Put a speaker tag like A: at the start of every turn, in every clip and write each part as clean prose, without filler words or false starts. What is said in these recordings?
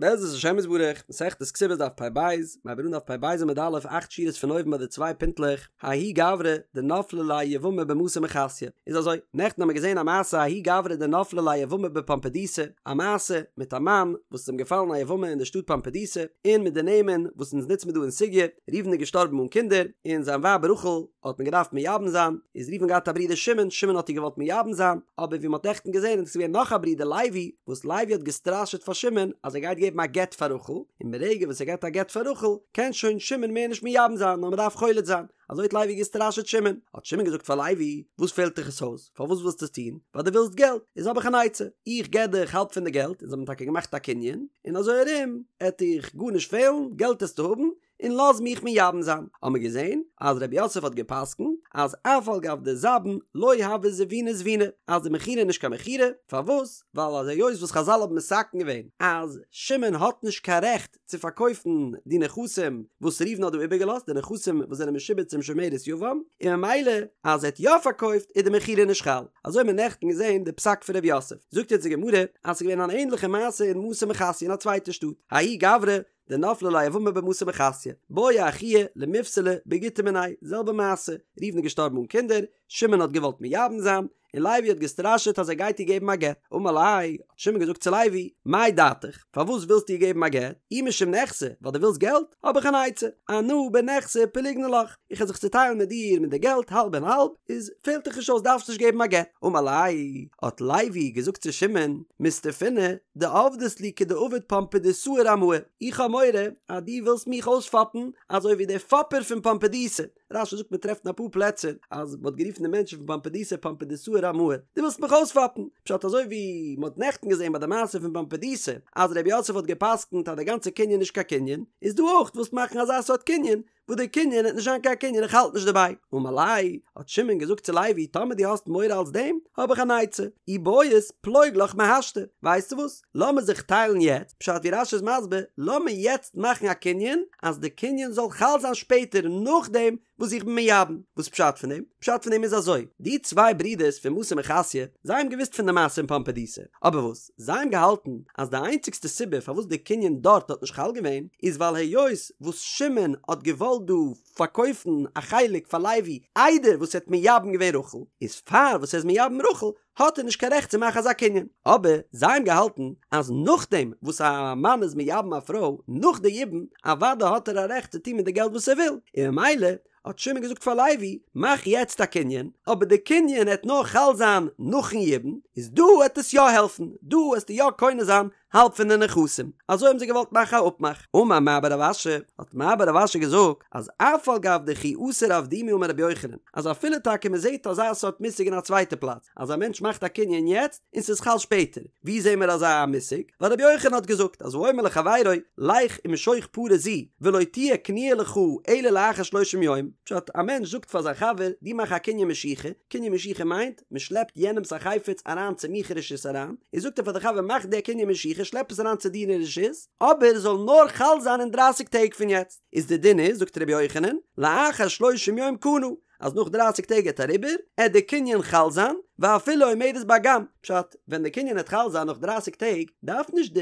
A: בעזרת השם יתברך, מסכת כתובות דף פ"ב, מ'הייבט אן דף פ"ב עמוד א', אכט שורות פון אויבן ביי די צוויי פינטלעך, ההוא גברא דנפלה ליה יבמה במתא מחסיא, איז אזוי, נעכטן האמיר געזען א מעשה ההוא גברא דנפלה ליה יבמה בפומבדיתא, א מעשה מיט א מאן וואס איז אים געפאלן א יבמה אין די שטאט פומבדיתא, און מיט די נעמען וואס אונז נוצן מיר דא אין סוגיא, ראובן איז געשטארבן אן קינדער, און זיין ווייב רחל האט מען געדארפט מייבם זיין, איז ראובן געהאט א ברודער שמעון, שמעון האט איר געוואלט מייבם זיין, אבער ווי מ'האט נעכטן געזען איז געווען נאך א ברודער לוי, וואס לוי האט געסטראשעט פאר שמעון אז ער גייט געבן א גט פאר רחל, און ברגע וואס ער געבט א גט פאר רחל, קען שוין שמעון מער נישט מייבם זיין, נאר מ'דארף חולץ זיין. אזוי האט לוי געסטראשעט שמעון. האט שמעון געזאגט פאר לוי, וואס פעלט דיך עס אויס? פארוואס ווילסטו עס טון? ווייל דו ווילסט געלט, איז האב איך אן עצה, איך געב דיך האלב פון די געלט, און זיי האבן טאקע געמאכט א קנין, און אזוי ארום עט דיך גארנישט פעלן, געלט עסטו האבן, און לאז מיך מייבם זיין. האבן מיר געזען אז רב יוסף האט געפסקנט אז אף על גב דזבין לא הוי זבוני זביני, אז די מכירה איז נישט קיין מכירה, פארוואס? ווייל אז היות וואס חזל האבן מתקן געווען אז שמעון האט נישט קיין רעכט צו פארקויפן די נכסים וואס ראובן האט דא איבערגעלאזט, די נכסים וואס זענען משועבד צום שומרת יבם, און ממילא אז ער האט יא פארקויפט איז די מכירה נישט חל. אזוי האבן מיר נעכטן געזען די פסק פון רב יוסף. זאגט יעצט די גמרא אז ס'איז געווען אן ענליכע מעשה אין מתא מחסיא אין א צווייטע שטאט, ההוא גברא דנפלה ליה יבמה במתא מחסיא, בעי אחוה למיפסלה בגיטא מיניה, זעלבע מעשה, ראובן איז געשטארבן אן קינדער, שמעון האט געוואלט מייבם זיין, און לוי האט געסטראשעט אז ער גייט איר געבן א גט, אמר ליה, האט שמעון געזאגט צו לוי, מאי דעתיך, פארוואס ווילסטו איר געבן א גט, אי משום נכסי, ווייל דו ווילסט געלט, האב איך אן עצה, אנא בנכסי פליגנא לך, איך וועל זיך צוטיילן מיט דיר מיט די געלט האלב און האלב, איז פעלט דיך נישט אויס דארפסט נישט געבן א גט, אמר ליה, האט לוי געזאגט צו שמעון, מסתפינא, דעבדת לי כדעבד פומבדיתאה רמאי, איך האב מורא אז דו ווילסט מיך אויספאפן אזוי ווי דער פאפער פון פומבדיתא, רש"י זאגט מען טרעפט אין אפאר פלעצער אז מען האט גערופן די מענטשן פון פומבדיתא פומבדיתאה רמאי, דו ווילסט מיך אויספאפן, פשט אזוי ווי מען האט נעכטן געזען ביי די מעשה פון פומבדיתא אז ר' יוסף האט גע'פסק'נט אז די גאנצע קנין איז נישט קיין קנין, איז דא אויך ווילסט מאכן אזא סארט קנין וואס די קנין וועט נישט זיין קיין קנין איך האלט נישט דערביי, אמר ליה, האט שמעון געזאגט צו לוי טאמער דו האסט מורא אלס דעם האב איך אן עצה, אי בעית פלוג לך מהשתא, ווייסטו וואס, לאמיר זיך טיילן יעצט, פשט ווי רש"י איז מסביר, לאמיר יעצט מאכן א קנין אז די קנין זאל חל זיין שפעטער נאכדעם וואס איך בין מייבם, וואס פשט פון דעם? פשט פון דעם איז אזוי, די צוויי ברידערס פון מתא מחסיא, זיי האבן געוואוסט פון די מעשה אין פומבדיתא, אבער וואס? זיי האבן געהאלטן אז די איינציגסטע סיבה פארוואס די קנין דארט האט נישט חל געווען איז ווייל היות וואס שמעון האט געוואלט דא פארקויפן א חלק פאר לוי איידער וואס ער האט מייבם געווען רחל, איז פאר וואס ער איז מייבם רחל האט ער נישט קיין רעכט צו מאכן אזא קנין. אבער זיי האבן געהאלטן אז נאכדעם וואס א מאן איז מייבם א פרוי נאך די יבום אוודאי האט ער א רעכט צו טון מיט די געלט וואס ער וויל, און ממילא האט שמעון געזאגט פאר לוי, מאך יעצט א קנין, אבער די קנין העט נאר חל זיין נאכן יבום, איז דא העט עס יא העלפן, דא העסטו יא קונה זיין האלב פון די נכסים. אזוי האבן זיי געוואלט מאכן א אפמאך. אמר מר בר רב אשי, האט מר בר רב אשי געזאגט, אז אף על גב דכי אסר אבדומי אמר רבי יוחנן, אז אפילו טאקע מען זעט אזא סארט מושג אין א צווייטע פלאץ, אז א מענטש מאכט א קנין יעצט און ס'איז חל שפעטער, ווי זעהן מיר אזא מושג? ווייל רבי יוחנן האט געזאגט אז האומר לחבירו לך ומשוך פרה זו ולא תהיה קנויה לך אלא לאחר שלושים יום, פשט, א מענטש זאגט פאר זיין חבר דו מאך א קנין משיכה, קנין משיכה מיינט מען שלעפט יענעמס א חפץ אריין צו מיך אין רשות אריין, און זאגט ער פאר די חבר מאך די קנין משיכה שלעפ עס אריין צו דיר אין רשות, אבער עס זאל נאר חל זיין אין דרייסיג טעג פון יעצט, איז די דין איז זאגט רבי יוחנן לאחר שלושים יום קנה, אז נאך דרייסיג טעג העט אריבער, עט די קנין חל זיין, ואפילו עומדת באגם, פשט, ווען די קנין העט חל זיין נאך דרייסיג טעג, דארף נישט די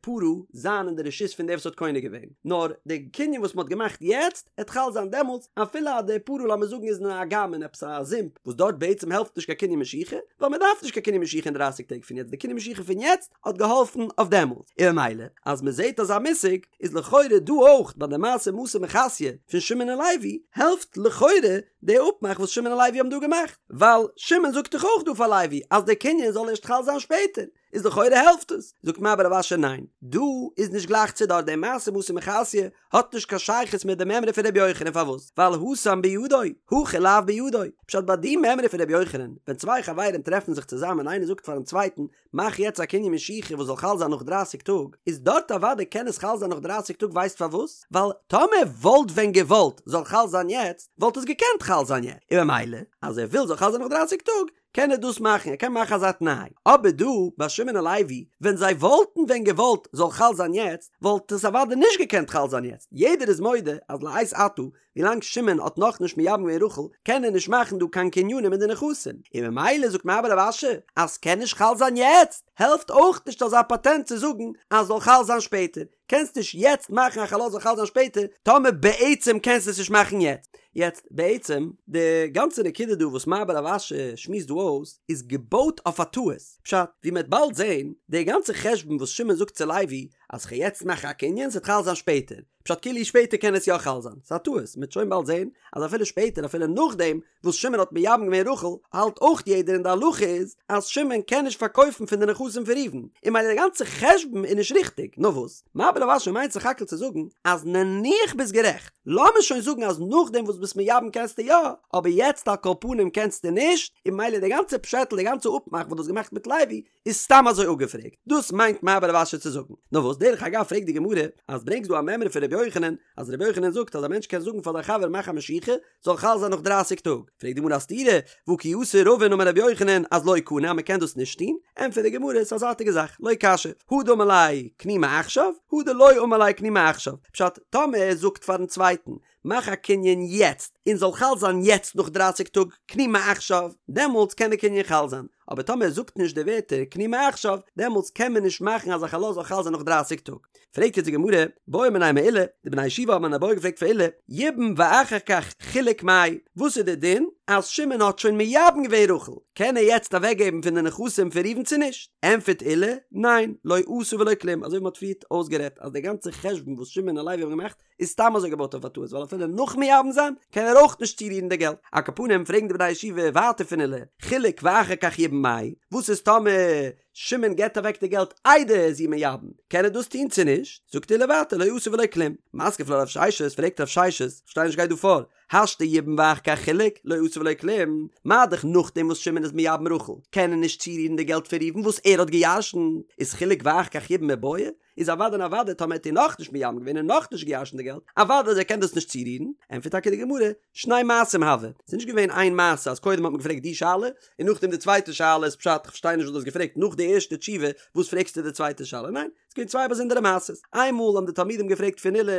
A: פרה זיין אין די רשות פון דער וואס האט קונה געווען, נאר די קנין וואס מען האט געמאכט יעצט, העט חל זיין דעמאלטס, אפילו אז די פרה לאמיר זאגן איז אין א אגם אין עפעס א זומפ, וואס דארט בעצם העלפט נישט קיין קנין משיכה, ווייל מען דארף נישט קיין קנין משיכה אין דרייסיג טעג פון יעצט, די קנין משיכה פון יעצט האט געהאלפן אויף דעמאלטס, און ממילא אז מען זעט אזא מושג, איז לכאורה דא אויך ביי די מעשה מתא מחסיא פון שמעון און לוי, העלפט לכאורה די אפמאך וואס שמעון און לוי האבן דא געמאכט, ווייל שמעון זאגט דאך אויך דא פאר לוי אז די קנין זאל ערשט חל זיין שפעטער, איז לכאורה העלפט עס, זאגט מר בר רב אשי ניין, דא איז נישט גלייך צו דארט, די מעשה מתא מחסיא האט נישט קיין שייכות מיט די מימרא פון רבי יוחנן פארוואס? ווייל התם בידו, הכא לאו בידו, פשט ביי די מימרא פון רבי יוחנן, ווען צוויי חברים טרעפן זיך צוזאמען איינער זאגט פארן צווייטן מאך יעצט א קנין משיכה וואס זאל חל זיין נאך דרייסיג טאג, איז דארט אוודאי קען עס חל זיין נאך דרייסיג טאג ווייסט פארוואס? ווייל טאמער וואלט ווען געוואלט זאל חל זיין יעצט וואלט עס געקענט חל זיין יעצט, און ממילא אז ער וויל זאל חל זיין נאך דרייסיג טאג. קען ער דאס מאכן, ער קען מאכן אזא תנאי. אבער דא ביי שמעון און לוי, ווען זיי וואלטן ווען געוואלט זאל חל זיין יעצט, וואלט עס אוודאי נישט געקענט חל זיין יעצט, יעדער איז מודה אז לעת עתה, ווילאנג שמעון האט נאכנישט מייבם געווען רחל, קען ער נישט מאכן דא קיין קנינים אין די נכסים, און ממילא זאגט מר בר רב אשי אז ס'קען נישט חל זיין יעצט, העלפט אויך נישט אזא פאטענט צו זאגן אז זאל חל זיין שפעטער, קענסט נישט יעצט מאכן א חלות זאל חל זיין שפעטער, טאמער בעצם קענסטו עס נישט מאכן יעצט. יעצט בעצם, די גאנצע נקודה דא וואס מר בר רב אשי שמועסט דא אויס, איז געבויט אויף א טעות, פשט, ווי מ'עט באלד זען, די גאנצע חשבון וואס שמעון זאגט צו לוי, אז כ'גיי יעצט מאכן א קנין ס'עט חל זיין שפעטער, פשט כאילו שפעטער קען עס יא חל זיין, ס'איז א טעות, מ'עט שוין באלד זען אז אפילו שפעטער אפילו נאכדעם וואס שמעון האט מייבם געווען רחל, האלט אויך יעדער און די הלכה איז אז שמעון קען נישט פארקויפן פון די נכסים פון ראובן, און ממילא די גאנצע חשבון איז נישט ריכטיג, נאר וואס? מר בר רב אשי מיינט סך הכל צו זאגן אז נניח ביסט גערעכט, לאמיר שוין זאגן אז נאכדעם וואס ביסט מייבם קענסטו יא, אבער יעצט על כל פנים קענסטו נישט, און ממילא די גאנצע פשעטל די גאנצע אפמאך וואס דו האסט געמאכט מיט לוי איז סתם אזוי אפגעפרעגט, דאס מיינט מר בר רב אשי צו זאגן. נאר וואס, דרך אגב פרעגט די גמרא, אז ברענגסט דא א מימרא פון רבי יוחנן, אז רבי יוחנן זאגט אז א מענטש קען זאגן פאר זיין חבר מאך א משיכה, זאל חל זיין נאך דרייסיג טאג, פרעגט די גמרא א סתירה, והא כי אתא רבין אמר רבי יוחנן אז לא קנה אז מען קען דאס נישט טון, ענטפערט די גמרא ס'איז א זייטיגע זאך, לא קשיא, הא דאמר ליה קני מעכשיו, הא דלא אמר ליה קני מעכשיו, פשט, טאמער ער זאגט פארן צווייטן מאך א קנין יעצט און זאל חל זיין יעצט נאך דרייסיג טאג קני מעכשיו, דעמאלטס קען די קנין חל זיין, אבער טאמער ער זאגט נישט די ווערטער קני מעכשיו, דעמאלטס קען מען נישט מאכן אז א חלות זאל חל זיין נאך דרייסיג טאג. פרעגט יעצט די גמרא, בעו מיניה מעולא, די בני הישיבה האבן אן איבעיא געפרעגט פון עולא, יבם ואחר כך חילק מאי, וואס איז די דין אז שמעון האט שוין מייבם געווען רחל, קען ער יעצט אוועקגעבן פון די נכסים פון ראובן צו נישט? ענטפערט עולא, ניין, לא עשה ולא כלום, אזוי ווי מען האט פריערט אויסגערעדט אז די גאנצע חשבון וואס שמעון און לוי האבן געמאכט איז סתם אזוי געבויט אויף א טעות ווייל אפילו נאך מייבם זיין קען ער אויך נישט צורירן די געלט. על כל פנים פרעגן די בני הישיבה ווייטער פון עולא, חילק ואחר כך יבם מאי, וואס איז טאמער שמעון געבט אוועק די געלט איידער ער איז איר מייבם, קען ער דאס טון צו נישט? זאגט עולא ווייטער לא עשה ולא כלום. מתקיף לה רב ששת, פרעגט רב ששת, כ'פארשטיי נישט גייט דא פאר, השתא יבם ואחר כך חילק, לא עשה ולא כלום, מה דאך נאכדעם וואס שמעון איז מייבם רחל, קען ער נישט צורירן די געלט פון ראובן וואס ער האט גע'ירש'נט, איז חילק ואחר כך יבם מיבעיא? איז אוודאי און אוודאי טאמער האט איר נאכנישט מייבם געווען און נאכנישט געירשנט די געלט, אוודאי אז ער קען דאס נישט צורירן, ענטפערט טאקע די גמרא, שני מעשים הוו, ס'איז נישט געווען איין מעשה אז קודם האט מען געפרעגט די שאלה, און נאכדעם די צווייטע שאלה איז פשט כ'פארשטיי נישט וואס דו האסט געפרעגט נאך די ערשטע תשובה וואס פרעגסטו די צווייטע שאלה, ניין, ס'איז געווען צוויי באזונדערע מעשות, איינמאל האבן די תלמידים געפרעגט פון עולא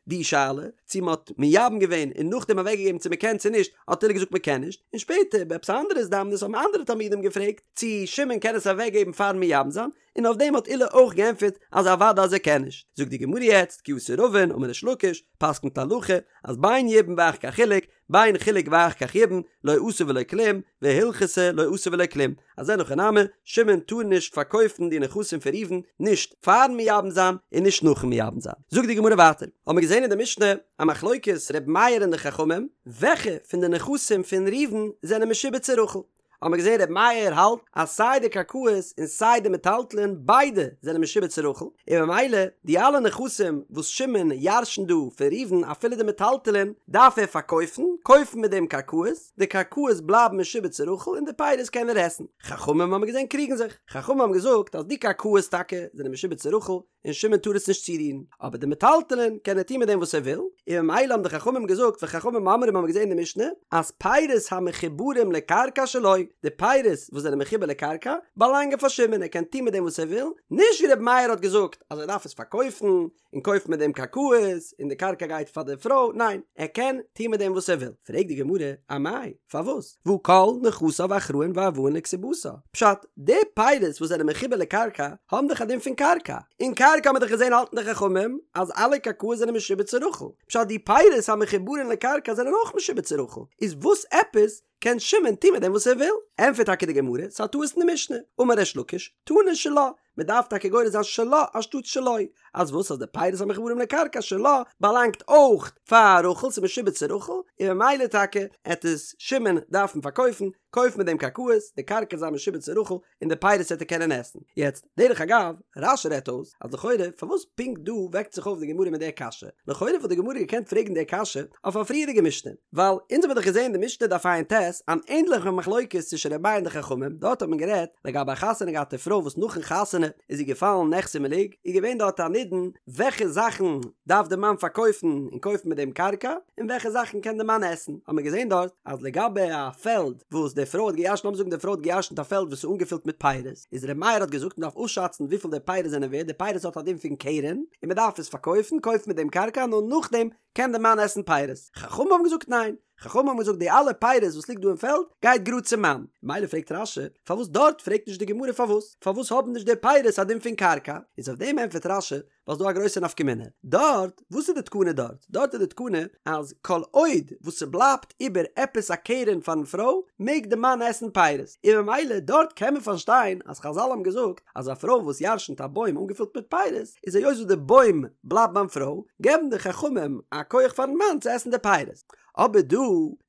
A: די שאלה, צו מען האט מייבם געווען און נאכדעם אוועקגעגעבן צו מען קען צו נישט, האט עולא געזאגט מען קען נישט, און שפעטער ביי עפעס א אנדערע הזדמנות האבן אנדערע תלמידים געפרעגט צו שמעון קען עס אוועקגעבן פארן מייבם זיין, און אויף דעם האט עולא אויך געענטפערט אז אוודאי אז ער קען נישט. זאגט די גמרא יעצט, כי אתא רבין, אמר ריש לקיש, פסק'נט הלכה, אז בין יבם ואחר כך חילק, בין חילק ואחר כך יבם, לא עשה ולא כלום, והלכתא לא עשה ולא כלום, אז אין הכי נמי, שמעון טאר נישט פארקויפן די נכסים פון ראובן, נישט פארן מייבם זיין און נישט נאכן מייבם זיין. זאגט די גמרא ווייטער, האבן מיר געזען אין די משנה א מחלוקת ר' מאיר און די חכמים, וועלכע פון די נכסים פון ראובן זענען משועבד צו רחל, האבן מיר געזען ר' מאיר האלט אז סיי די קרקעות און סיי די מטלטלין ביידע זענען משועבד צו רחל, און ממילא די אלע נכסים וואס שמעון ירש'נט דא פון ראובן אפילו די מטלטלין דארף ער פארקויפן, קויפן מיט דעם קרקעות, די קרקעות בלייבן משועבד צו רחל און די פירות קען ער עסן. חכמים האבן מיר געזען קריגן זיך, חכמים האבן געזאגט אז די קרקעות טאקע זענען משועבד צו רחל, און שמעון טאר עס נישט צורירן, אבער די מטלטלין קען ער טון מיט דעם וואס ער וויל, און ממילא האבן די חכמים געזאגט וחכמים אומרים האבן מיר געזען אין די משנה אז פירות המחוברים לקרקע שלו, די פירות וואס זענען מחובר לקרקע באלאנגען פאר שמעון ער קען טון מיט דעם וואס ער וויל, נישט ווי רבי מאיר האט געזאגט אז ער דארף עס פארקויפן און קויפן מיט דעם קרקעות און די קרקע גייט פאר די פרוי, ניין ער קען טון מיט דעם וואס ער וויל. פרעגט די גמרא, אמאי? פארוואס? והא כל נכסיו אחראין וערבאין לכתובתה. פשט, די פירות וואס זענען מחובר לקרקע האבן דאך א דין פון קרקע, און קרקע האבן מיר דאך געזען האלטן די חכמים אז אלע קרקעות זענען משועבד צו רחל, פשט די פירות המחוברין לקרקע זענען אויך משועבד צו רחל, איז וואס עפעס קען שמעון טון מיט דעם וואס ער וויל? ענטפערט טאקע די גמרא, ס'איז א טעות אין די משנה, אמר ריש לקיש, תנא שלה, מען דארף טאקע גורס זיין שלה אנשטאט שלו, אז וואס אז די פירות המחוברים לקרקע שלה באלאנגט אויך פאר רחל, ס'איז משועבד צו רחל, און ממילא טאקע עט עס שמעון דארפן פארקויפן, קויפן מיט דעם קרקעות, די קרקע זיין משועבד צו רחל, און די פירות עט ער קענען עסן. יעצט, דרך אגב, רש"י רעדט אויס, אז לכאורה פארוואס פונקט דא וועקט זיך אויף די גמרא מיט די קשיא? לכאורה וואלט די גמרא געקענט פרעגן די קשיא אויף א פריערדיגע משנה, ווייל אונז האבן דאך געזען אין די משנה דף ע"ט אן ענדליכע מחלוקת צווישן ר' מאיר און די חכמים, דארט האט מען גערעדט לגבי א חתונה געהאטע פרוי וואס נאכן חתונה. חתונה איז זי געפאלן נכסי מלוג, איז געווען דארט א נידון וועלכע זאכן דארף די מאן פארקויפן און קויפן מיט דעם קרקע, און וועלכע זאכן קען די מאן עסן, האט מען געזען דארט אז לגבי א פעלד וואס די פרוי האט געירשנט, לאמיר זאגן די פרוי האט געירשנט א פעלד וואס איז אנגעפילט מיט פירות, איז ר' מאיר האט געזאגט מען דארף אפשאצן וויפיל די פירות זענען ווערט, די פירות האט א דין פון קרן, און מען דארף עס פארקויפן, קויפן מיט דעם קרקע, נאר נאכדעם קען די מאן עסן פירות, חכמים האבן געזאגט ניין, חכמים האבן געזאגט די אלע פירות וואס ליגט דא אין פעלד גייט גראד צום מאן, מילא פרעגט רש"י פארוואס דארט פרעגט נישט די גמרא פארוואס פארוואס האבן נישט די פירות א דין פון קרקע, איז אויף דעם ענטפערט רש"י ווייל ס'דא א גרויסע נפקא מינה דארט, וואס איז די תקנה דארט? דארט איז די תקנה אז כל עוד וואס ס'בלייבט איבער עפעס א קרן פארן פרוי מעג די מאן עסן פירות, און ממילא דארט קען מען פארשטיין אז חזל האבן געזאגט אז א פרוי וואס ירשנט א בוים אנגעפילט מיט פירות איז היות וואס די בוים בלייבט ביים פרוי געבן די חכמים א כח פארן מאן צו עסן די פירות. אבער דא,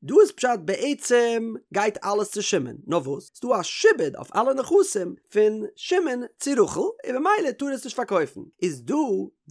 A: דא איז פשט בעצם גייט אלעס צו שמעון, נאר וואס ס'דא א שעבוד אויף אלע נכסים פון שמעון צו רחל און במילא טאר ער עס נישט פארקויפן, איז דא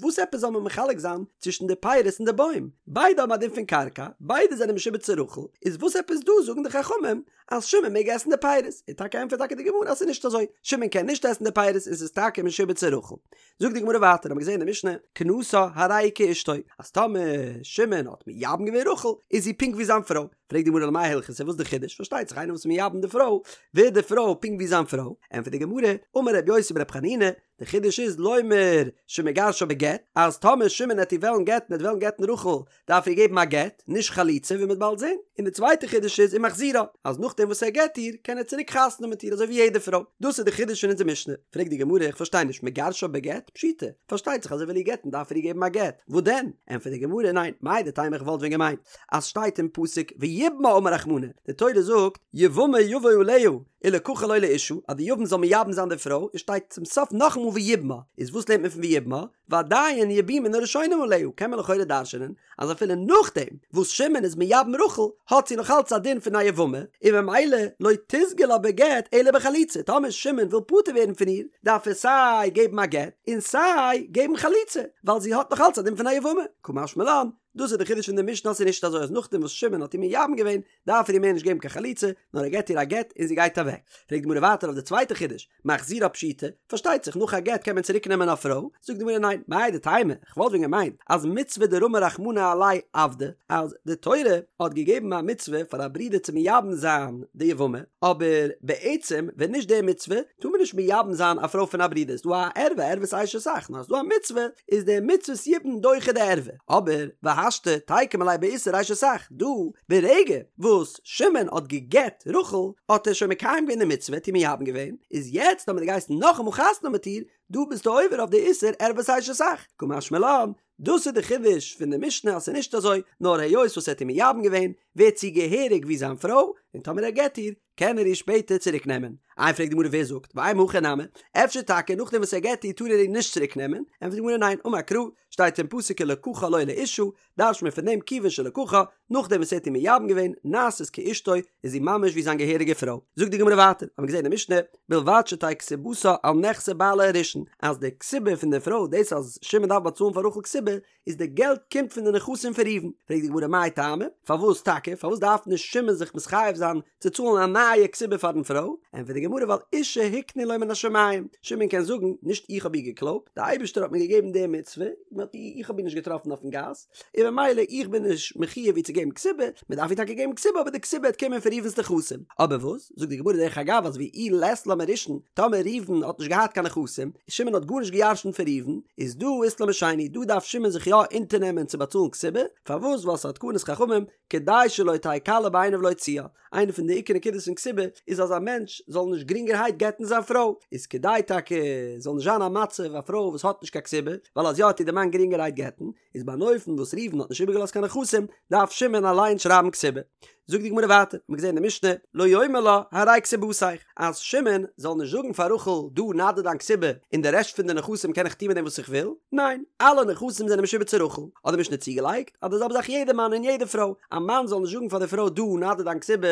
A: וואס עפעס זאל מען מחלק זיין צווישן די פירות און די בוים, ביידע האבן א דין פון קרקע, ביידע זענען משועבד צו רחל, איז וואס עפעס דא זאגן די חכמים אז שמעון מעג עסן די פירות, און טאקע ענטפערט טאקע די גמרא אז ס'איז נישט אזוי, שמעון קען נישט עסן די פירות און ס'איז טאקע משועבד צו רחל. זאגט די גמרא ווייטער, האבן מיר געזען אין די משנה, כנסה הרי היא כאשתו, אז טאמער שמעון האט מייבם געווען רחל, איז זי פונקט ווי זיין פרוי. פרעגט די גמרא למאי הלכתא, וואס איז די חידוש? פארשטייט זיך איינער וואס איז מייבם די פרוי, ווערט די פרוי פונקט ווי זיין פרוי. ענטפערט די גמרא, אמר רבי יוסי ברבי חנינא, די חידוש איז לומר שמגרשה בגט, אז טאמער שמעון העט איר וועלן גט'ן, ער העט וועלן גט'ן רחל, דארף ער געבן א גט, נישט חליצה ווי מ'וועט באלד זען. און די צווייטע חידוש איז ומחזירה, אז נאכדעם וואס ער גט איר, קען ער צוריק חתונה האבן מיט איר אזוי ווי יעדע פרוי. דאס איז די חידוש פון אונזער משנה. פרעגט די גמרא, איך פארשטיי נישט, מגרשה בגט? פשיטא, פארשטייט זיך אז ער וויל איר גט'ן דארף ער איר געבן א גט, וואס דען? ענטפערט די גמרא, ניין, מהו דתימא איך וואלט ווען געמיינט אז שטייט אין פסוק ויבמה אמר רחמנא, די תורה זאגט יבמה יבא עליה ולקחה לו לאשה, אז די יבם זאל מייבם זיין די פרוי, און שטייט צום סוף נאכאמאל ויבמה, איז וואס לערנט מען פון ויבמה? ועדיין יבומין הראשונים עליה, קען מען לכאורה דרש'נען אז אפילו נאכדעם וואס שמעון איז מייבם רחל האט זי נאך אלץ א דין פון א יבמה, און ממילא לא תיסגי לה בגט אלא בחליצה, טאמער שמעון וויל פטור ווערן פון איר דארף ער סיי געבן א גט און סיי געבן חליצה, ווייל זי האט נאך אלץ א דין פון א יבמה, קא משמע לן, דאס איז די חידוש פון די משנה אז ס'איז נישט אזוי אז נאכדעם וואס שמעון האט איר מייבם געווען דארף ער איר מער נישט געבן קיין חליצה, נאר ער געבט איר א גט און זי גייט אוועק. פרעגט די גמרא ווייטער אויף די צווייטע חידוש, מחזירה פשיטא, פארשטייט זיך נאך א גט קען מען צוריק נעמען א פרוי, זאגט די גמרא ניין, מהו דתימא, כ'וואלט ווען געמיינט אז מצוה דרמא רחמנא עליה עבדא, אז די תורה האט געגעבן א מצוה פאר א ברודער צו מייבם זיין די יבמה, אבער בעצם ווען נישט די מצוה טאר מען נישט מייבם זיין א פרוי פון א ברודער, ס'דא א ערווה, ערוות אשת אח, נאר אז ס'דא א מצוה איז די מצוות יבום דוחה די ערווה, אבער והשתא תיקום עליה באיסור אשת אח, דא ברגע וואס שמעון האט גע'גט רחל האט ער שוין מקיים געווען די מצוה, האט איר מייבם געווען, איז יעצט טאמער דו גייסט נאכאמאל חתונה האבן מיט איר, דא ביסטו עובר אויף די איסור ערוות אשת אח, קא משמע לן, דאס איז די חידוש פון די משנה אז ס'איז נישט אזוי, נאר היות וואס ער האט איר מייבם געווען, ווערט זי געהעריג ווי זיין פרוי, און טאמער ער גט איר, קען ער איר שפעטער צוריק נעמען. איי פרעגט די גמרא ווער זאגט, ואימא הכי נמי, אפשר טאקע נאכדעם וואס ער גט איר טאר ער איר נישט צוריק נעמען, ענטפערט די גמרא ניין, אמר קרא, שטייט אין פסוק ולקחה לו לאשה, דרש'ט מען פון דעם כיוון שלקחה, נאכדעם וואס ער האט איר מייבם געווען, נעשית כאשתו, איז זי ממש ווי זיין געהעריגע פרוי. זאגט די גמרא ווייטער, האבן מיר געזען אין די משנה, בלבד שתהא כתובתה על נכסי בעלה הראשון, אז די כתובה פון די פרוי, דאס אז שמעון דארף באצאלן פאר רחל כתובה, איז די געלט קומט פון די נכסים פון ראובן. פרעגט די גמרא מאי טעמא, פארוואס טאקע, פארוואס דארף נישט שמעון זיך מתחייב זיין צו צאלן א נייע כתובה פארן פרוי? ענטפערט די גמרא ווייל אישה הקנו לו מן השמים, שמעון קען זאגן, נישט איך האב איר געקלויבט, די אייבערשטער האט מיר געגעבן די מצוה, איך האב איר נישט געטראפן אויפן גאס, און ממילא איך בין נישט מחויב איר צו געבן כתובה, מען דארף איר טאקע געבן כתובה אבער די כתובה וועט קומען פון ראובן'ס נכסים. אבער וואס, זאגט די גמרא דרך אגב אז ואי לית לה מראשון, טאמער ראובן האט נישט געהאט קיין נכסים, שמעון האט גארנישט געירשנט פון ראובן, איז דא אית לה משני, דא דארף שמעון זיך יא אונטערנעמען צו באצאלן כתובה, פארוואס ווייל ס'איז א תקנת חכמים, כדי שלא תהא קלה בעיניו להוציאה, איינע פון די עיקר נקודות פון כתובה איז אז א מענטש זאל נישט גרינגערהייט גט'ן זיין פרוי, איז כדי טאקע זאל נישט זיין א מצב א פרוי וואס האט נישט קיין כתובה, ווייל אז יא וועט איר די מאן גרינגערהייט גט'ן, איז ביי אן אופן וואס ראובן האט נישט איבערגעלאזט קיין נכסים, דארף שמעון אליין שרייבן כתובה. זאגט די גמרא ווייטער, מ'האט געזען אין די משנה, לא יאמר לה הרי כתובתיך, אז שמעון זאל נישט זאגן פאר רחל דא נא דיר דיין כתובה און די רעשט פון די נכסים קען איך טון מיט דעם וואס איך וויל, ניין, אלע נכסים זענען משועבד צו רחל, האט די משנה צוגעלייגט אז די זעלבע זאך יעדע מאן און יעדע פרוי, א מאן זאל נישט זאגן פאר די פרוי דא נא דיר דיין כתובה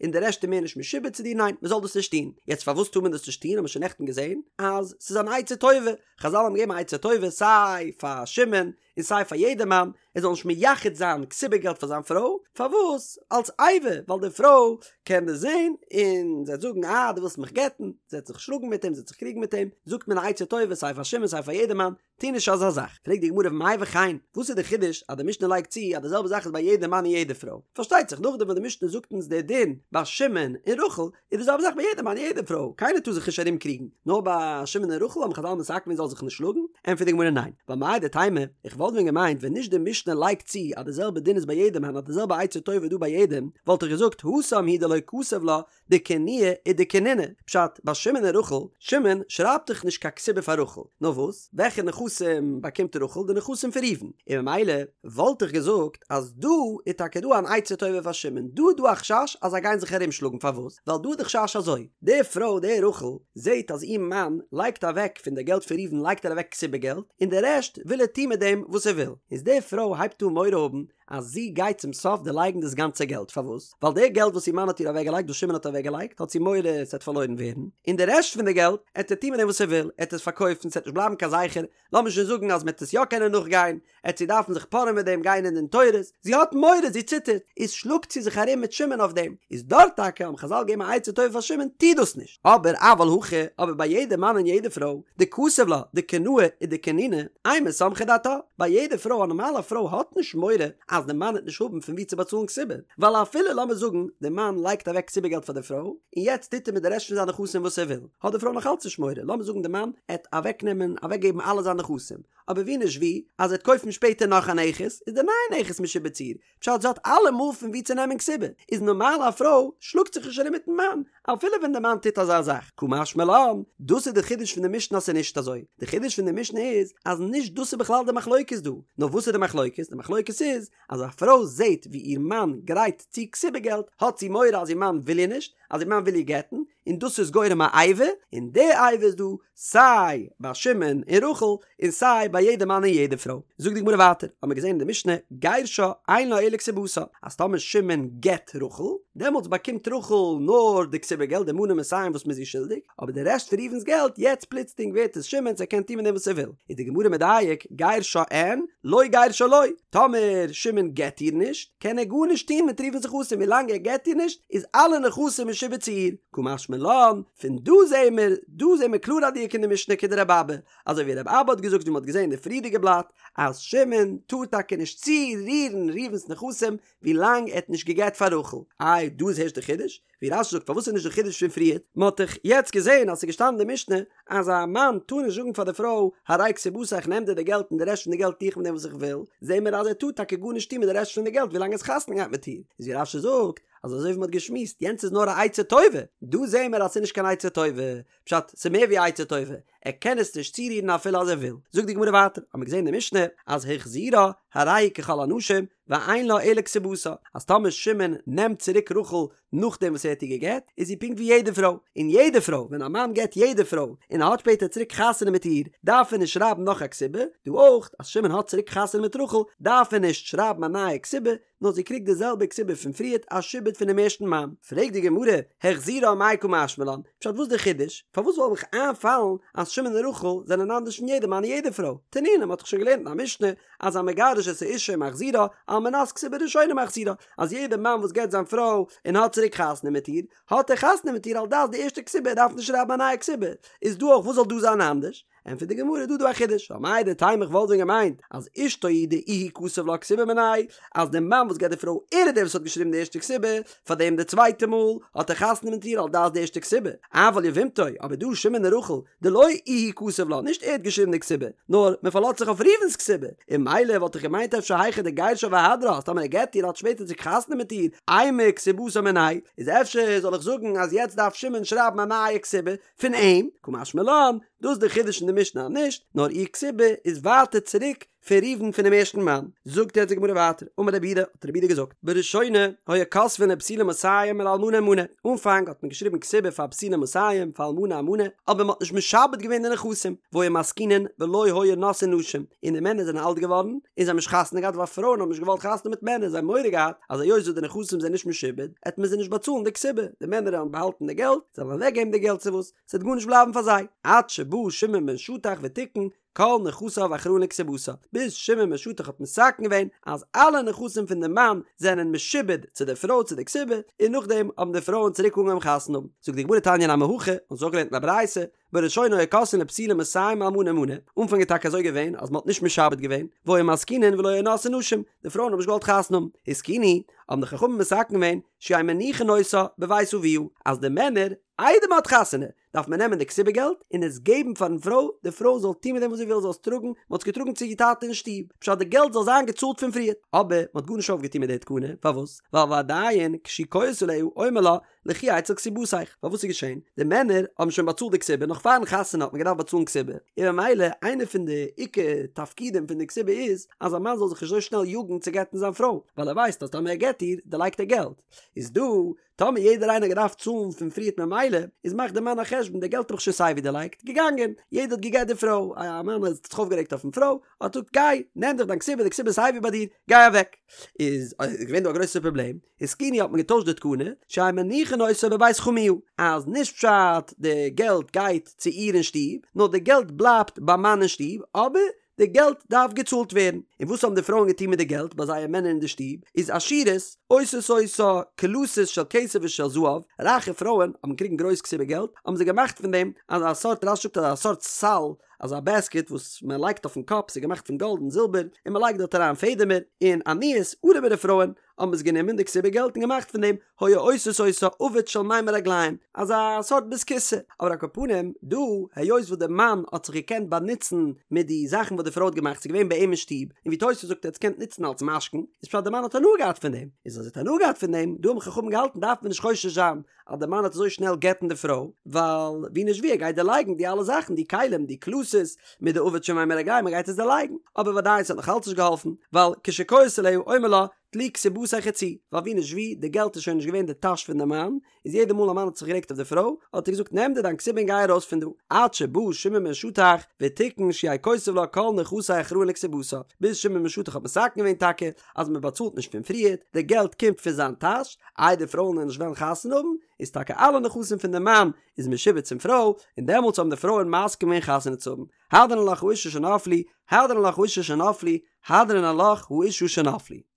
A: און די רעשט איז מער נישט משועבד צו דיר, ניין, מ'זאל דאס נישט טון. יעצט פארוואס טאר מען דאס נישט טון האט מען שוין נעכטן געזען אז ס'איז אן עצה טובה, חזל האבן געגעבן א עצה טובה סיי פאר שמעון און סיי פאר יעדע מאן, ער זאל נישט מייחד זיין כתובה געלט פאר זיין פרוי, פארוואס? אלס איבה, ווייל די פרוי קען דאס זען און זי וועט זאגן אה דו ווילסט מיך גט'ן, זי וועט זיך שלאגן מיט אים, זי וועט זיך קריגן מיט אים, זאגט מען א עצה טובה סיי פאר שמעון סיי פאר יעדע מאן, טו נישט אזא זאך. פרעגט די גמרא ומאי וכן, וואס איז די חידוש אז די משנה לייגט צו אז די זעלבע זאך איז ביי יעדע מאן און יעדע פרוי? פארשטייט זיך נאכדעם וואס די משנה זאגט אונז די דין ביי שמעון און רחל, איז די זעלבע זאך ביי יעדע מאן און יעדע פרוי, קיינער טאר זיך נישט ארום קריגן, נאר ביי שמעון און רחל האבן חזל מתקן געווען זאל זיך נישט שלאגן? ענטפערט די גמרא ניין, ווייל מהו דתימא, איך וואלט ווען געמיינט ווען נישט די משנה לייגט צו אז די זעלבע דין איז ביי יעדע מאן אז די זעלבע עצה טובה איז דא ביי יעדעם, וואלט איך געזאגט התם הוא דלא כתב לה דקינויי ודקנינא, פשט, ביי שמעון און רחל, שמעון שרייבט דאך נישט קיין כתובה פאר רחל, נאר וואס, וועלכע נכסים באקומט רחל, די נכסים פון ראובן, און ממילא וואלט איך געזאגט אז דא איז טאקע דא אן עצה טובה פאר שמעון, דא איז דא א חשש אז זיי גייען זיך ארום שלאגן, פארוואס? ווייל דא איז די חשש אזוי, די פרוי די רחל זעט אז איר מאן לייגט אוועק פון די געלט פון ראובן לייגט ער אוועק כתובה געלט, און די רעשט וויל ער טון מיט דעם וואס ער וויל, איז די פרוי הייבט אן מורא האבן אז זי גייט צום סוף דערלייגן דאס גאנצע געלט, פארוואס? ווייל די געלט וואס איר מאן האט איר אוועקגעלייגט, וואס שמעון האט אוועקגעלייגט, האט זי מורא עס וועט פארלוירן ווערן, און די רעשט פון די געלט עט ער טון מיט דעם וואס ער וויל, ער עט עס פארקויפן, ס'עט נישט בלייבן קיין זכר, לאמיר שוין זאגן אז מ'עט עס יא קענען נאכגיין, עט זי דארפן זיך פארען מיט דעם, גיין אין דין תורות, זי האט מורא, זי ציטערט, איז שלאגט זי זיך ארום מיט שמעון אויף דעם, איז דארט טאקע האבן חזל געגעבן א עצה טובה פאר שמעון, טו דאס נישט, אבער אבל הכא, אבער ביי יעדע מאן און יעדע פרוי, דכתב לה, דקינאי ודקנינא, אימא סמכה דעתה, ביי יעדע פרוי, א נארמאלע פרוי האט נישט מורא אז די מאן וועט נישט האבן פון וואו צו באצאלן כתובה, ווייל אפילו לאמיר זאגן די מאן לייגט אוועק כתובה געלט פאר די פרוי, און יעצט טוט ער מיט די רעשט פון זיינע נכסים וואס ער וויל, האט די פרוי נאך אלץ נישט מורא, לאמיר זאגן די מאן עט אוועקנעמען אוועקגעבן אלע זיינע נכסים, אבער ווי נישט ווי, אז ער וועט קויפן שפעטער נאך א נכס, איז די נייע נכס משועבד צו איר, פשט זי האט אלעמאל פון וואו צו נעמען כתובה, איז נארמאל א פרוי שלאגט זיך נישט ארום מיטן מאן, אפילו ווען די מאן טוט אזא זאך, קא משמע לן, דאס איז די חידוש פון די משנה אז ס'איז נישט אזוי, די חידוש פון די משנה איז אז נישט דאס איז בכלל די מחלוקת דא, נאר וואס איז די מחלוקת? די מחלוקת איז אז א פרוי זעט ווי איר מאן גרייט צו כתובה געלט, האט זי מורא אז איר מאן וויל איר נישט, אז איר מאן וויל איר גט'ן, און דאס איז גורם א איבה, און די איבה איז דא סיי ביי שמעון און רחל, און סיי ביי יעדע מאן און יעדע פרוי. זאגט די גמרא ווייטער, האט מען געזען אין די משנה, גירשה אין לה אלא כתובתה, אז טאמער שמעון גט רחל, דעמאלטס באקומט רחל נאר די כתובה געלט, די מנה מאתים וואס מ'איז איר שולדיג, אבער די רעשט פון ראובן'ס געלט, יעצט פלוצלינג ווערט עס שמעון'ס, ער קען טון מיט דעם וואס ער וויל. איז די גמרא מדייק, גירשה אין, לא גירשה לא, טאמער שמעון גט איר נישט, קען ער גארנישט טון מיט ראובן'ס נכסים, ווילאנג ער גט איר נישט, איז אלע נכסים משועבד צו איר. קא משמע לן, פון דא זעהן מיר, דא זעהן מיר קלאר א דיוק אין די משנה כדרבי אבא, אזוי ווי רבי אבא האט געזאגט ווי מען האט געזעהן אין די פריערדיגע בלאט, אז שמעון טאר טאקע נישט צורירן ראובן'ס נכסים ווילאנג ער האט נישט געגעט פאר רחל. איי דא איז הערשט די חידוש? ווי רש"י זאגט פארוואס איז נישט די חידוש פון פריערט? מען האט דאך יעצט געזעהן אז ס'איז געשטאנען אין די משנה אז א מאן טאר נישט זאגן פאר די פרוי הרי כתובתיך איך נעם דיר די געלט און די רעשט פון די געלט טו איך מיט דעם וואס איך וויל, זעהן מיר אז ער טאר טאקע גארנישט טון מיט די רעשט פון די געלט ווילאנג ער האט חתונה געהאט מיט איר, איז ווי רש"י זאגט אז אזוי ווי מען האט געשמועסט יענץ איז נאר א עצה טובה, דא זעהן מיר אז ס'איז נישט קיין עצה טובה, פשט, ס'איז מער ווי א עצה טובה, ער קען עס נישט צורירן אפילו אז ער וויל. זאגט די גמרא ווייטער, האמיר געזען אין די משנה אז החזירה הרי היא ככל הנשים ואין לה אלא כתובתה, אז טאמער שמעון נעמט צוריק רחל נאכדעם וואס ער האט איר גע'גט, איז זי פונקט ווי יעדע פרוי, און יעדע פרוי, ווען א מאן גט יעדע פרוי און ער האט שפעטער צוריק חתונה מיט איר, דארף ער נישט שרייבן נאך א כתובה, דא אויך, אז שמעון האט צוריק חתונה מיט רחל, דארף ער נישט שרייבן א נייע כתובה, נאר זי קריגט די זעלבע כתובה פון פריערט א שעבוד פונעם ערשטן מאן. פרעגט די גמרא, החזירה מאי קא משמע לן, פשט וואס די חידוש? פארוואס זאל מיך איינפאלן אז שמעון און רחל זענען אנדערש פון יעדע מאן און יעדע פרוי? תנינא, מ'האט דאך שוין געלערנט אין א משנה אז המגרש את האשה ומחזירה, על מנת כתובה ראשונה מחזירה, אז יעדע מאן וואס גט זיין פרוי און האט צוריק חתונה מיט איר, האט ער חתונה מיט איר על דעת די ערשטע כתובה, ער דארף נישט שרייבן א נייע כתובה. איז דא אויך וואס זאל דא זיין אנדערש? ענטפערט די גמרא דא דא א חידוש, ווייל מהו דתימא איך וואלט ווען געמיינט אז אשתו הוא דאיהו כתב לה כתובה מיניה, אז די מאן וואס גט די פרוי ער איז דער וואס האט געשריבן די ערשטע כתובה, פארדעם די צווייטע מאל האט ער חתונה מיט איר על דעת די ערשטע כתובה, אבל יבמתו, אבער דא שמעון און רחל, דלא איהו כתב לה, נישט ער האט געשריבן די כתובה, נאר מען פארלאזט זיך אויף ראובן'ס כתובה, און ממילא וואלט איך געמיינט אפשר היכא דגירשה והדרה אז טאמער ער גט איר האט שפעטער צוריק חתונה מיט איר, אימא כתובתה מיניה, איז אפשר זאל איך זאגן אז יעצט דארף שמעון שרייבן א נייע כתובה, פון אים, קא משמע לן, דאס איז די חידוש אין די משנה אז נישט, נאר איר כתובה איז ווייטער צוריק פון ראובן פונעם ערשטן מאן. זאגט יעצט די גמרא ווייטער, אמר רב יהודה, האט רב יהודה געזאגט, בראשונה היו כותבין לבתולה מאתים ולאלמנה מנה, אנפאנג האט מען געשריבן כתובה פאר בתולה מאתים, פאר אלמנה א מנה, אבער מען האט נישט משעבד געווען די נכסים, והיו מזקינין ולא היו נושאין נשים, און די מענער זענען אלט געווארן, און זיי האבן נישט חתונה געהאט ווייל פרויען האבן נישט געוואלט חתונה מיט מענער, זיי האבן מורא געהאט אז היות וואס די נכסים זענען נישט משועבד, עט מען זיי נישט באצאלן די כתובה, די מענער וועלן באהאלטן די געלט, זיי וועלן אוועק געבן די געלט צו וואס, ס'וועט גארנישט בלייבן פאר זיי, עד שבא שמעון בן שטח ותיקן. כל נכסיו אחראין לכתובתה, ביז שמעון בן שטח האט מתקן געווען אז אלע נכסים פון די מאן זענען משועבד צו די פרוי צו די כתובה, און נאכדעם האבן די פרויען צוריק אנגעהויבן חתונה האבן. זאגט די גמרא תניא נמי הכי, אונז האבן אויך געלערנט אין א ברייתא, בראשונה היו כותבין לבתולה מאתים אלמנה מנה, אנפאנג איז טאקע אזוי געווען אז מען האט נישט משעבד געווען, והיו מזקינין ולא היו נושאין נשים, די פרויען האבן נישט געוואלט חתונה האבן, התקינו, האבן די חכמים מתקן געווען, שיהיו מניחין אותה בבית אביה, אז די מענער, איידער מען האט חתונה, דארף מען נעמען די כתובה געלט און עס געבן פארן פרוי, די פרוי זאל טון מיט דעם וואס זי וויל, זאל עס טראגן, מען האט עס געטראגן צו איר טאטע אין שטוב, פשט די געלט זאל זיין געצאלט פון פריער, אבער מען האט גארנישט אויפגעטון מיט די תקנה, פארוואס? ווייל ועדיין כשהוא כועס עליה אומר לה לכי אצל כתובתיך, ווייל וואס איז געשען? די מענער האבן שוין באצאלט די כתובה, נאך פארן חתונה האט מען געדארפט באצאלן כתובה, און ממילא איינע פון די עיקר תפקידים פון די כתובה איז אז א מאן זאל זיך נישט אזוי שנעל יאגן צו גט'ן זיין פרוי, ווייל ער ווייסט אז טאמער ער גט איר, דערלייגט ער געלט, איז דא טאמער יעדער איינער האט געדארפט צאלן פון פריערט ממילא איז מאכט די מאן א חשבון די געלט האב איך שוין סייווי דערלייגט, געגאנגען, יעדער האט געגט די פרוי, א מאן האט זיך אויפגערעגט אויפן פרוי, האט געזאגט גיי, נעם דיך דיין כתובה, די כתובה איז סייווי ביי דיר, גיי אוועק. איז געווען דא א גרויסע פראבלעם, התקינו האט מען געטוישט די תקנה, שיהיו מניחין אותה בבית חמיה, אז נישט פשט די געלט גייט צו איר אין שטוב, נאר די געלט בלייבט ביים מאן אין שטוב, אבער די געלט דארף געצאלט ווערן. און וואס האבן די פרויען געטון מיט די געלט ביי זייער מענער אין די שטוב? איז עשירות עושות אותה קלתות של כסף ושל זהב, רייכע פרויען האבן געקריגן גרויס כתובה געלט, האבן זיי געמאכט פון דעם אזא סארט, רש"י זאגט אזא סארט סל, אזא בעסקעט וואס מען לייגט אויפן קאפ, ס'איז געמאכט פון גאלד און זילבער, און מען לייגט דארט אריין פעדעמער, און עניות, ארעמערע פרויען, האבן עס גענומען די כתובה געלט און געמאכט פון דעם היו עושות אותה עביט של מימי רגלים, אזא סארט בית הכסא, אבער על כל פנים דא היות וואס די מאן האט זיך געקענט באנוצן מיט די זאכן וואס די פרוי האט געמאכט ס'איז געווען ביי אים אין שטוב, און ווי תוס' זאגט ער האט עס געקענט נוצן אלס משכון, איז פשט די מאן האט הנאה געהאט פון דעם, איז אז ער האט הנאה געהאט פון דעם, דא האבן חכמים געהאלטן דארף מען נישט חושש זיין אז די מאן וועט אזוי שנעל גט'ן די פרוי, ווייל ווי נישט ווי ער גייט דערלייגן די אלע זאכן, די כלים, די קלתות, מיט די עביט של מימי רגלים, ער גייט עס דערלייגן, אבער וודאי ס'האט נאך אלץ נישט געהאלפן, ווייל כשכועס עליה אומר לה, טלי כתובתיך וצאי, ווייל ווי נישט ווי, די געלט איז שוין נישט געווען די טאש פון די מאן, איז יעדע מאל א מאן האט זיך גערעגט אויף די פרוי, האט ער געזאגט נעם דיר דיין כתובה און גיי ארויס פון דא, עד שבא שמעון בן שטח ותיקן שיהא כותב לה כל נכסי אחראין לכתובתה, ביז שמעון בן שטח האט מתקן געווען טאקע אז מען באצאלט נישט פון פריערט, די געלט קומט פון זיין טאש, איי די פרויען וועלן נישט וועלן חתונה האבן, איז טאקע אלע נכסים פון די מאן איז משועבד צום פרוי, און דעמאלטס האבן די פרויען מסכים געווען חתונה צו האבן. הדרן עלך האשה שנפלו, הדרן עלך האשה שנפלו, הדרן עלך האשה שנפלו.